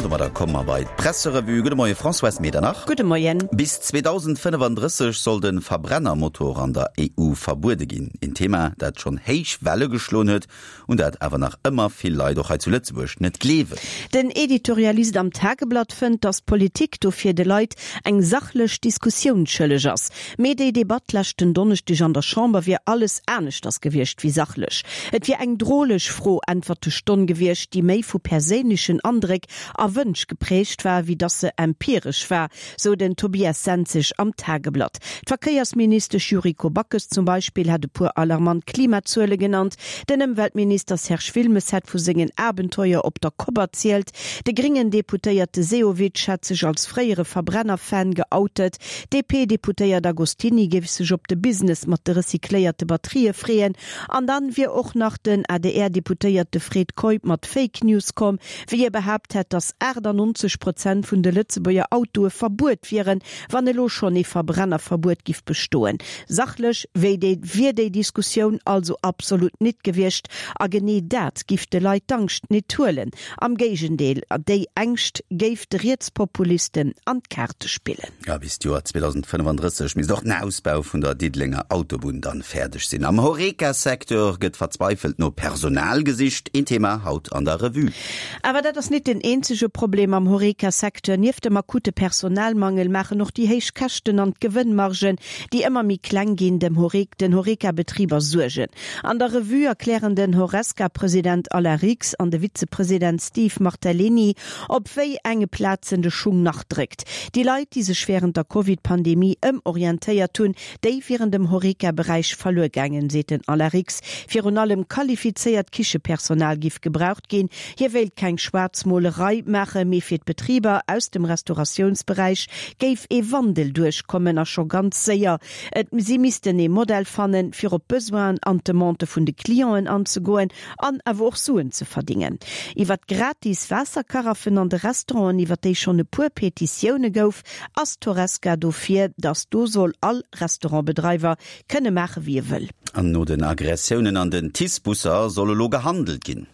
An domadder komme mer bei d'Presserevue. Gudde Moie Françoise Medernach. Gudde Moien. Bis 2035 soll de Verbrennermotor an der EU verbuede ginn. Een Thema, dat schonn héich Welle geschloen huet, un dat awer nach ëmmer vill Leit och hei zu Lëtzebuerg net gleewen. Den Editorialist am Tageblatt fënnt, datt d'Politik dofir de Leit eng sachlech Diskussioun schëlleg ass. Mee déi Debatt leschten Donneschdeg an der Chamber wier alles aneschters gewiescht wéi sachlech. Et wier eng droleg Fro-Äntwerte-Stonn gewiescht, déi méi vu perséinlechen Andréck a Wënsch geprägt war, wéi datt se empiresch war, sou den Tobias Senzig am Tageblatt. D'Verkéiersministesch Yuriko Backes zum Beispill hätt e puer alarmant Klimazuele genannt, den Ëmweltminister Serge Wilmes hätt vu sengen Abenteuer op der Kopp erzielt, de gréngen Deputéierte Sehovic hätt sech als fréiere Verbrenner-Fan geoutet, D'DP-Deputéiert Agostini géif sech op de Business mat de recycléierte Batterië freeën. An dann wier och nach den ADR-Deputéierte Fred Keup mat Fake News komm, wéi hie behaapt hätt, datt 98 Prozent vun de Lëtzebuerger Autoe verbuet wieren, wann elo schonn ee Verbrennerverbuet giff bestoen. Sachlech wéi déi wier déi Diskussioun also absolut nit gewiescht. A genee dat giff de Leit d'Angscht nit huelen. Am Géigendeel, déi Ängscht géif de Rietspopulisten an d'Kaarte spillen. A bis d'Joer 2035 misst och den Ausbau vun der Diddelenger Autobunn dann fäerdeg sinn. Am Horeca-Secteur gëtt verzweifelt no Personal gesicht, een Thema haut an der Revue. Awer dat ass nit den eenzege Problem am Horeca-Secteur. Nieft dem akute Personalmangel maachen och déi héich Käschten an d'Gewënnmargen, déi ëmmer méi kleng ginn, dem den Horeca-Betriber Suergen. An der Revue erklären den Horesca-President Alain Rix an de Vizepresident Steve Martellini, op wéi enge Plazen de Schung nach dréckt. Déi Leit, déi sech wärend der Covid-Pandemie ëmorientéiert hunn, déi wieren dem Horeca-Beräich verluer gaangen, seet den Alain Rix. Virun allem qualifizéiert Kichepersonal giff gebraucht ginn. Hie wéilt keng Schwaarzmolerei maachen, mee fir d'Betriber aus dem Restauratiounsberäich géif ee Wandel duerchkommen a scho ganz séier. Et si missten ee Modell fannen, fir op d'Besoinen an d'Demandë vun de Clienten anzegoen an awer och Suen ze verdingen. Iwwer d'gratis Waasserkaraffen an de Restauranten, iwwer déi schonn e puer Petitioune gouf, ass d'Horesca dofir, datt do soll all Restaurantbedreiwer kënne maache wéi e wëll. An no den Aggressiounen an den TICE-Busser soll elo gehandelt ginn.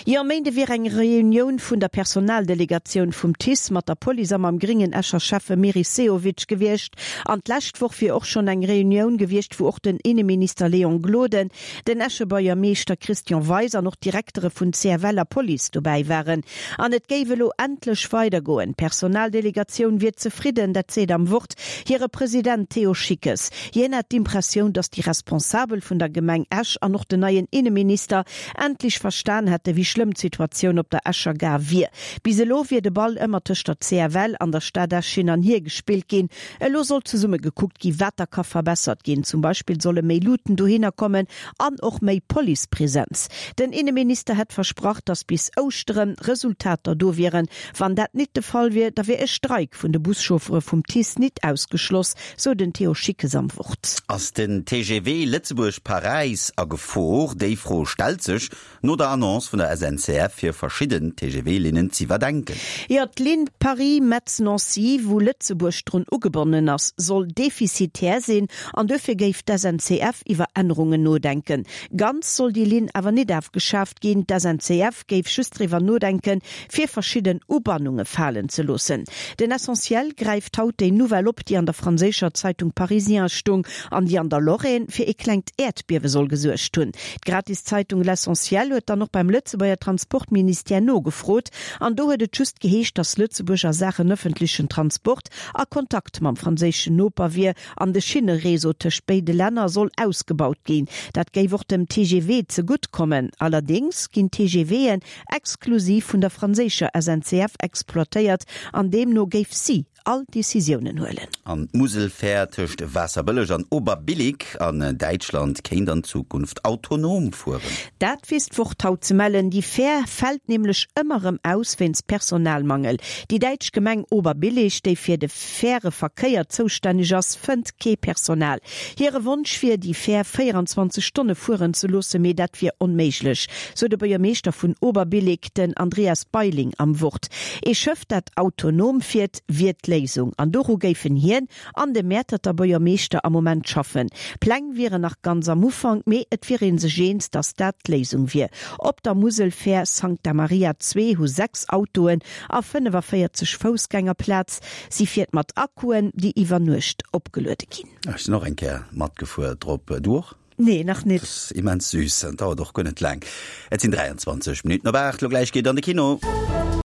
Jo, e Méinde wier eng Reunioun vun der Personaldelegatioun vum TICE mat der Police a mam gréngen Escher Schäffe Meris Sehovic gewiescht. An d'lescht Woch wier och schonn eng Reunioun gewiescht, wou och den Inneminister Léon Gloden, den Escher Buergermeeschter Christian Weis an och d'Direktere vun CFL a Police dobäi waren. An et géif elo endlech weidergoen. D'Personaldelegatioun wier zefridden, dat seet am Wort hire President Theo Schickes. Hien hätt d'Impressioun, datt déi Responsabel vun der Gemeng Esch an och den neien Inneminister endlech verstan hätte wéi schlëmm d'Situatioun op der Escher Gare wier. Bis elo wier de Ball ëmmer tëscht der CFL an der Stad Esch hin an hier gespillt ginn. Elo soll zesumme gekuckt gi wat da ka verbessert ginn. Zum Beispill solle méi Luuten dohinner kommen an och méi Policepresenz. Den Inneminister hätt versprach, datt bis Ouschtere Resultater do wieren. Wann dat nit de Fall wier, da wier e Streik vun de Buschauffere vum TICE nit ausgeschloss, sou den Theo Schickes am Wort. Ass den TGV Lëtzebuerg-Paräis a Gefor? Déi Fro stellt sech no der Annonce vun der SNCF, fir verschidden TGV-Linnen z'iwwerdenken. Jo, d'Linn Paris-Metz-Nancy, wou Lëtzebuerg drun ugebonnen ass, soll defizitär sinn an duerfir géif d'SNCF iwwer Ännerungen nodenken. Ganz soll déi Linn awer nit afgeschaaft ginn. D'SNCF géif just driwwer nodenken, fir verschidden Ubannunge falen ze loossen. Den Essentiel gräift haut déi Nouvelle op, déi an der franséischer Zeitung Parisien stung an déi an der Lorraine fir ee klengt Äerdbiewe soll gesuergt hunn. D'Gratiszeitung L'Essentiel huet dann och beim Lëtzebuerger Transportministère nogefrot an do huet et just geheescht, datt Lëtzebuerg a Saachen ëffentlechen Transport a Kontakt mam franséischen Noper wier An de Schinnereseau tëscht béide Länner soll ausgebaut ginn. Dat géif och dem TGV zegutt kommen. Allerdéngs ginn d'TGVen exklusiv vun der franséischer SNCF exploitéiert an deemno géif si all Decisiounen huelen. An d'Muselfähr tëscht Waasserbëlleg an Oberbillig an Däitschland kéint an Zukunft autonom fueren. Dat weess d'Wort haut ze mellen. Déi Fähr fält nämlech ëmmer erëm aus wéinst Personalmangel. Déi däitsch Gemeng Oberbillig, déi fir de. Faire Verkéier zoustänneg ass, fënnt kee Personal. Hire Wonsch wier, déi Fähr 24 Stonne fueren ze loossen, mee dat wier onméiglech, sou de Buergermeeschter vun Oberbillig, den Andreas Beiling am Wort. Ee Schëff, dat autonom fiert, wier d'Léisung. Léisung an doru géifen hien an de Mäerterter Buergermeeschter am Moment schaffen. Pläng wieren nach ganz am Ufank, mee et wier ee sech eens, datt dat d'Léisung wier. Op der Muselfähr Sancta Maria 2 hu 6 Autoen a 45 Foussgänger Plaz. Si fiert mat Akkuen, déi iwwer Nuecht opgeluede ginn. Ech sinn och eng Kéier matgefuer drop. Du och? Nee, nach nit. Dat ass immens süß an dauert och guer net laang. Et sinn 23 Minutten op 8. Lo gläich geet an de Kino.